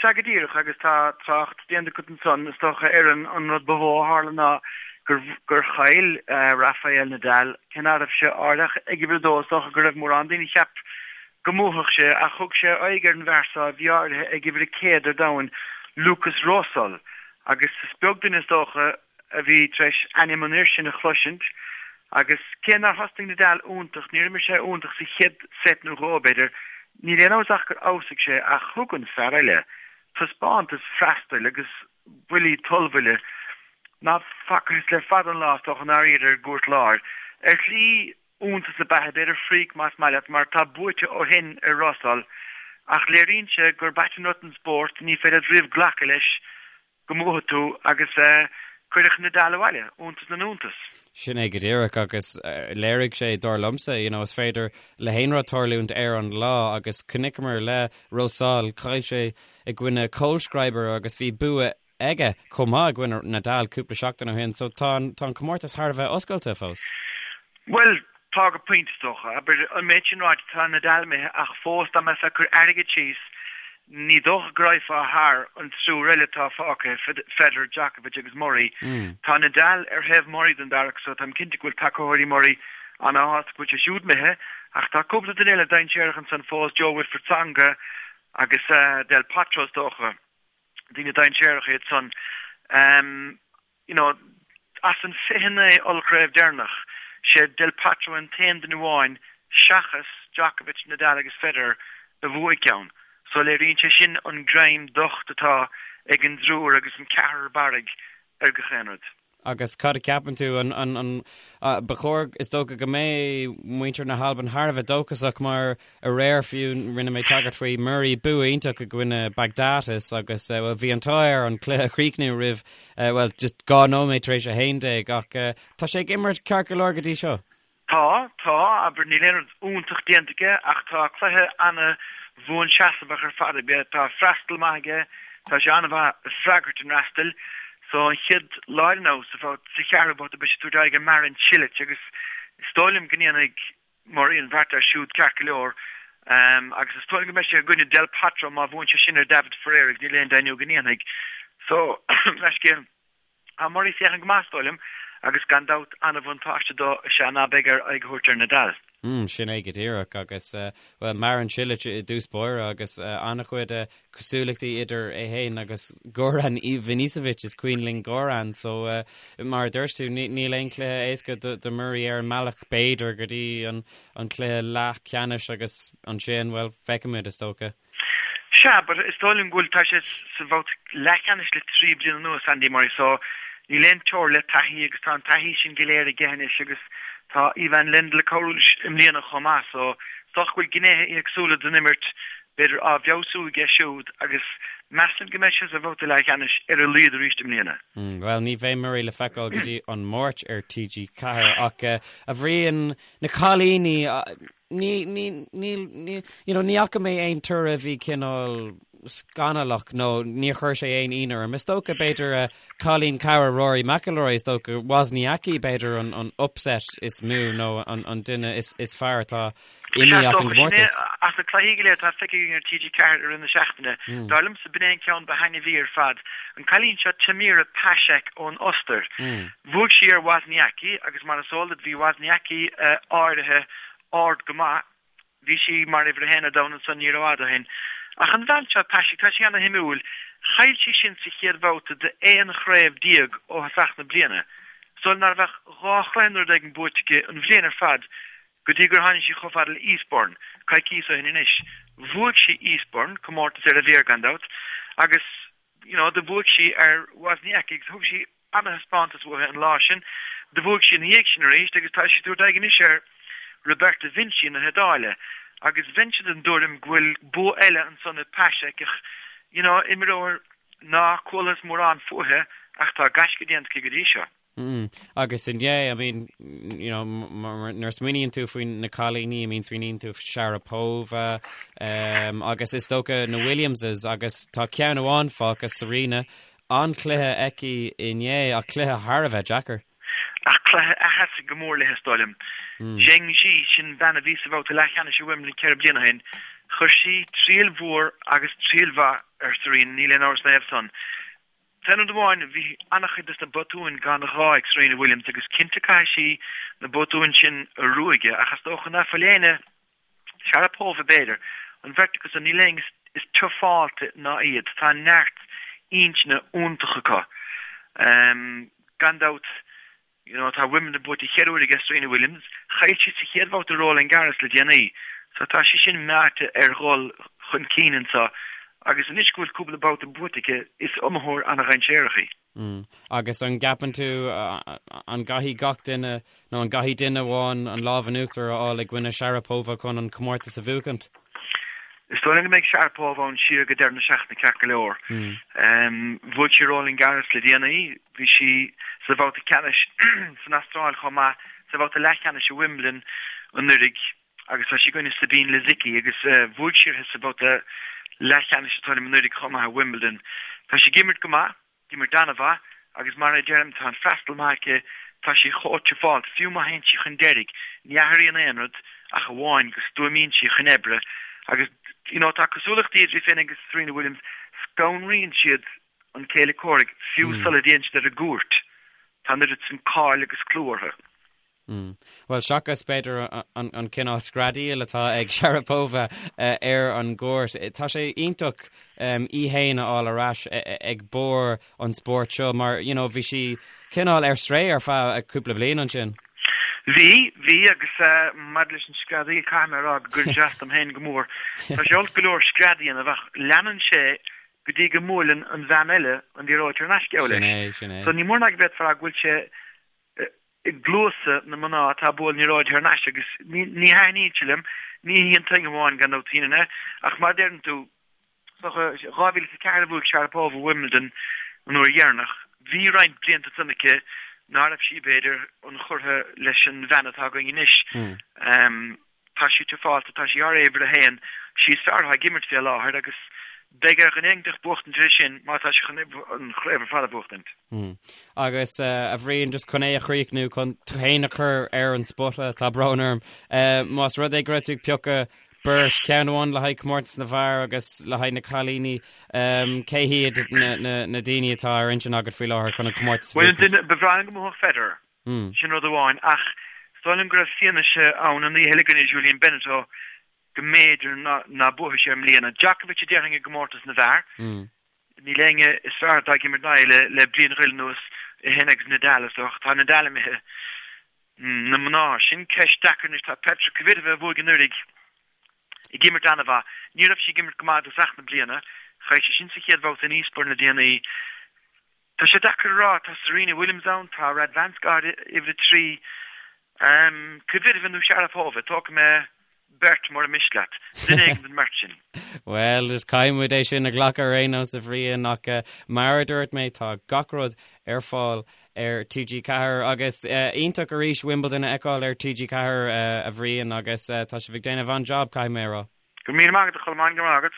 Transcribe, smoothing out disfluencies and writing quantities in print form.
Sea go díreach, agus tá trácht déanta agat ansan, is dócha, ar an rud ba mhó a tharla ná gur gur chaill Rafael Nadal, cé ná raibh sé áirithe ach ag uimhir a dó, is dócha go raibh mórán daoine a cheap go mbuafadh sé, ach thug sé aghaidh ar an bhfear so a bhí áirithe ag uimhir a 100 ar domhan, Lukas Rosol, agus is beag duine is dócha a bhí tar éis ainm an fhir sin a chloisint, agus cé nár thosnaigh Nadal iontach, níor imir sé iontach sa chéad seit nó dhó, b'fhéidir, níl aon amhras ach gur fheabhsaigh sé, ach thug an fear eile taispeántas freastail agus buillí tollbhuille ná facthas le fada an lá, is dócha, i ndáiríre ar an gcúirt láir. Ar shlí, iontas ab ea é, b'fhéidir freak más maith leat, mar tá buaite ó shin ar Rosol, ach léiríonn sé gurb ait an rud an spórt, ní féidir leat riamh glacadh leis go mbuafaidh tú agus cuireadh Nadal abhaile, iontas na n-iontas. Sin é go díreach agus léirigh sé, dar liomsa, you know, is féidir le haon rud tarlúint ar an lá agus chonaiceamar le Rosol, chaill sé i gcoinne Kohlschreiber agus bhí bua aige chomh maith i gcoinne Nadal cúpla seachtain ó shin, so tá an, tá an comórtas thar a bheith oscailte fós. Bhuel, tá go pointe is dócha. Abair, an méid sin ráite, tá Nadal imithe ach fós dá mbeifeá ag cur airgid síos, ní dócha go raghfá thar an triúr eile atá fágtha, Federer, Djokovic agus Murray. Tá Nadal ar thaobh Murray den bheairic so táim cinnte go bhfuil tacaitheoirí Murray ana-shásta go bhfuil sé siúd imithe ach tá cúpla duine eile dainséarach ansan fós, Jo-Wilfried Tsonga agus Del Potro is dócha. Daoine dainséaracha iad san. You know, as an 29 ollchraobh deireanach, sé Del Potro an t-aon duine amháin seachas Djokovic, Nadal agus Federer a bhuaigh ceann. So léiríonn sé sin an greim docht atá ag an dtriúr agus an ceathrar barraigh ar gach aon rud. Agus cad a cheapann tú, an, an, an, ba chóir, is dócha go mbeidh muintir na hAlban thar a bheith dóchasach mar aréir fiú rinne mé tagairt faoi Murray bua iontach i gcoinne Baghdatis agus bhuel bhí an t-ádh air an cluiche a chríochnú roimh bhuel just 2 nóiméad tar éis 11 ach tá sé ag imirt ceart go leor go dtí seo. Tá, tá, abair, níl aon rud iontach déanta aige ach tá cluiche ana-bhuanseasmhach ar fad aige. Tá freastal maith aige, tá sé an-mhaith ag freagairt an fhreastail. So an chéad lá eile now, sa sa cheathrú babhta beidh sé ag tabhairt aghaidh ar Marin Cilic agus is dóigh liom go ndéanfaidh Murray an bheart air siúd ceart go leor. Agus is dóigh liom go mbeidh sé i gcoinne Del Potro má bhuann sé sin ar David Ferrer agus níl aon deimhniú go ndéanfaidh. So, leithscéal. Tá Murray ag féachaint go maith, is dóigh liom, agus gan dabht an-bhuntáiste dó is ea ná beidh air aghaidh a thabhairt ar Nadal. Mm, sin é go díreach agus, bhuel, Marin Cilic i dtús báire agus an-chuid cosúlachtaí idir é féin agus Goran Ivanisevic, is cuimhin linn Goran, so mar a dúirt tú, níl aon chluiche éasca do Murray ar an mbealach b'fhéidir go dtí an cluiche leathcheannais agus ansin, bhuel, feicfimid is dócha. Sea, but is dóigh liom go bhfuil, tá sé sa bhabhta leathcheannais le 3 bliana anuas, Andy Murray, so níl aon teora le taithí agus tá an taithí sin go léir aige anois agus tá Ivan Lendl ag cabhrú leis i mbliana chomh maith, so is dócha go bhfuil gnéithe éagsúla den imirt b'fhéidir á bhfeabhsú aige siúd agus measaim go mbeidh sé sa bhabhta leathcheannais ar a laghad arís i mbliana. Bhuel, ní bheidh Murray le feiceáil go dtí an Máirt ar TG4 ach, a Bhriain, na cailíní, Ní, ní, níl, ní, you know, ní fhaca mé aon toradh a bhí cineál scannalach nó níor chuir sé aon ionadh orm. Is dócha, b'fhéidir, cailín cara Rory McIlroy, is dócha, Wozniacki, b'fhéidir, an, an upset is mó nó an, an duine is, is fearr atá imithe as an gcomórtas. As na cluichí go léir atá feicthe againn ar TG4 i rith na seachtaine, dar liomsa b'in é an ceann ba thaitneamhaí ar fad. An cailín seo Tamira Paszek ón Ostair. Bhuaigh sí ar Wozniacki agus mar is eol duit bhí Wozniacki áirithe ard go maith. Bhí sí mar uimhir a haon ar domhan ansan ní rófhada ó shin. Ach an bhean seo, Paszek, tá sí ana-shuimiúil. Chaill sí sin sa chéad bhabhta d'aon chraobh déag ó thosach na bliana. Is dóigh liom ná raibh ach dhá chluiche nó rud éigin buaite aici an bhliain ar fad go dtí gur tháinig sí chomh fada le Eastbourne, coicíos ó shin anois. Bhuaigh sí Eastbourne, comórtas ar a mhéar gan dabht, agus you know, do bhuaigh sí ar Wozniacki agus thug sí ana-thaispeántas uaithi an lá sin. Do bhuaigh sí ina dhiaidh sin arís agus tá sí ag tabhairt aghaidh anois ar Roberta Vinci na hIodáile agus bheinnse den dtuairim go bhfuil bua eile ansan ag Paszek ach you know, imreoir ná cualathas mórán fúithi ach tá gaisce déanta aici go dtí seo. Mm. Agus inné, I mean, you know, nuair a smaoiníonn tú faoi na cailíní, I mean, smaoiníonn tú Sharapova, um, agus is dócha na Williamses agus tá ceann amháin fágtha Serena, An-chluiche aici inné ach cluiche thar a bheith deacair. Ach cluiche a sheasfaidh go mór léi is dóigh liom. Zheng Jie, sin bean a bhí sa bhabhta leathcheannais i Wimbledon 4 bliana ó shin. Chuir sí triail mhór agus triail mhaith ar Serena, níl aon amhras ina thaobh san. San rud amháin, bhí an-chuid de na botúin gan ghá ag Serena Williams agus cinnte caithfidh sí na botúin sin a ruaigeadh ach is dócha ná fuil éinne, Sharapova b'fhéidir, an bheirt acu san, níl éinne is tufáilte ná iad. Tá neart intinne iontach acu. Gan dabht, You know, tá Wimbledon buaite cheithre huaire aige Serena Williams. Chaill sí sa chéad bhabhta Roland Garros le déanaí. So tá sí sin meáite ar dhul chun cinn anseo agus anois go bhfuil cúpla babhta buaite aici, is iomaitheoir an-dhainséarach í. Mm. Agus an gceapann tú an gcaithfidh gach duine nó an gcaithfidh duine amháin an lámh in uachtar a fháil i gcoinne Sharapova chun an comórtas a bhuachaint? Is dóigh liom go mbeidh Sharapova ann siar go deireadh na seachtaine ceart go leor. Bhuaigh sí Roland Garros le déanaí, bhí sí sa bhabhta ceannais san Astráil chomh maith, sa bhabhta leathcheannais i Wimbledon anuraidh agus tá sí i gcoinne Sabine Lisicki agus bhuaigh sí uirthi sa bhabhta leathcheannais is dóigh liom anuraidh chomh maith i Wimbledon. Tá sí ag imirt go maith. Ag imirt an-mhaith agus mar a deirim tá an freastal maith aici, tá sí chomh tufáilte, fiú má théann sí chun deiridh, ní athraíonn aon rud ach amháin go stuaimíonn sí chun oibre agus you know tá cosúlachtaí idir í féin agus Serena Williams, scanraíonn siad an céile comhraic fiú sula dtéann siad ar an gcúirt, tá an oiread sin cáil agus clú orthu. Bhuel, seachas, b'fhéidir, an cineál screadaíl atá ag Sharapova ar an gcúirt, tá sé iontach í fhéin a fháil ar ais ag barr an spóirt seo mar, you know, bhí sí cineál ar strae ar feadh cúpla bliain ansin. Bhí, bhí, agus maidir leis an screadaíl, caithfidh mé a rá go gcuireann sé as dom féin go mór. Tá sé olc go leor scread a dhéanamh ach leanann sé go dtí go mbuaileann an bhean eile an liathróid thar n-ais, geall leis. Sin é, sin é. So ní mór ná go bhféadfá a rá go bhfuil sé i gcluasa na mná atá ag bualadh na liathróide thar n-ais agus ní thaitníonn sé liom, ní hí an t-aon amháin gan dabht a dhéanann é, ach mar a deireann tú, 2004 a bhuaigh Sharapova Wimbledon an uair dheireanach. Bhí roinnt blianta ansan aici ná raibh sí, b'fhéidir, ionchurtha leis an bhean atá againn anois. Tá sí tufáilte, tá sí thar uimhir a haon, sí is fearr atá ag imirt fé láthair agus beidh ar dhuine éiginteacht buachtaint uirthi sin má tá sí chun an chraobh ar fad a bhuachtaint. Agus a Bhriain, just chun é a chríochnú, chun tú féin a chur ar an spota, tá brón orm, más rud é go raibh tú ag piocadh beirt, ceann amháin le haghaidh comórtas na bhfear agus le haghaidh na cailíní, cé hiad na daoine atá ar intinn agat faoi láthair chun an comórtas a bhuachaint? Bhuel, ba bhreá liom go mbuafadh Federer. Sin rud amháin, ach is dóigh liom go raibh fianaise ann an oíche eile i gcoinne Julien Benneteau go mb'fhéidir ná buafaidh sé i mbliana. Djokovic a déarfainn i gcomórtas na bhfear. Níl éinne is fearr atá ag imirt ná é le bliain go leith anuas, é féin agus Nadal is dócha. Tá Nadal imithe. Na mná, sin ceist deacair anois. Tá Petra Kvitova a bhuaigh anuraidh ag imirt an-mhaith. Ní raibh sí ag imirt go maith i dtosach na bliana. Chaill sí sin sa chéad bhabhta in Eastbourne le déanaí. Tá sé deacair a rá, tá Serena Williams ann, tá Radwanska ar uimhir 3, Kvitova nó Sharapova, tógfaidh mé beirt mura miste leat, duine éigin den mbeirt sin. Bhuel, is caithfidh muid é sin a ghlacadh ar aon nós a Bhriain, ach mar a dúirt mé, tá gach rud ar fáil ar TG4 agus iontach arís Wimbledon a fheiceáil ar TG4 a Bhriain agus tá sibh ag déanamh an-jab, caithfidh mé a rá. Go raibh míle maith agat a Cholmáin, go raibh maith agat.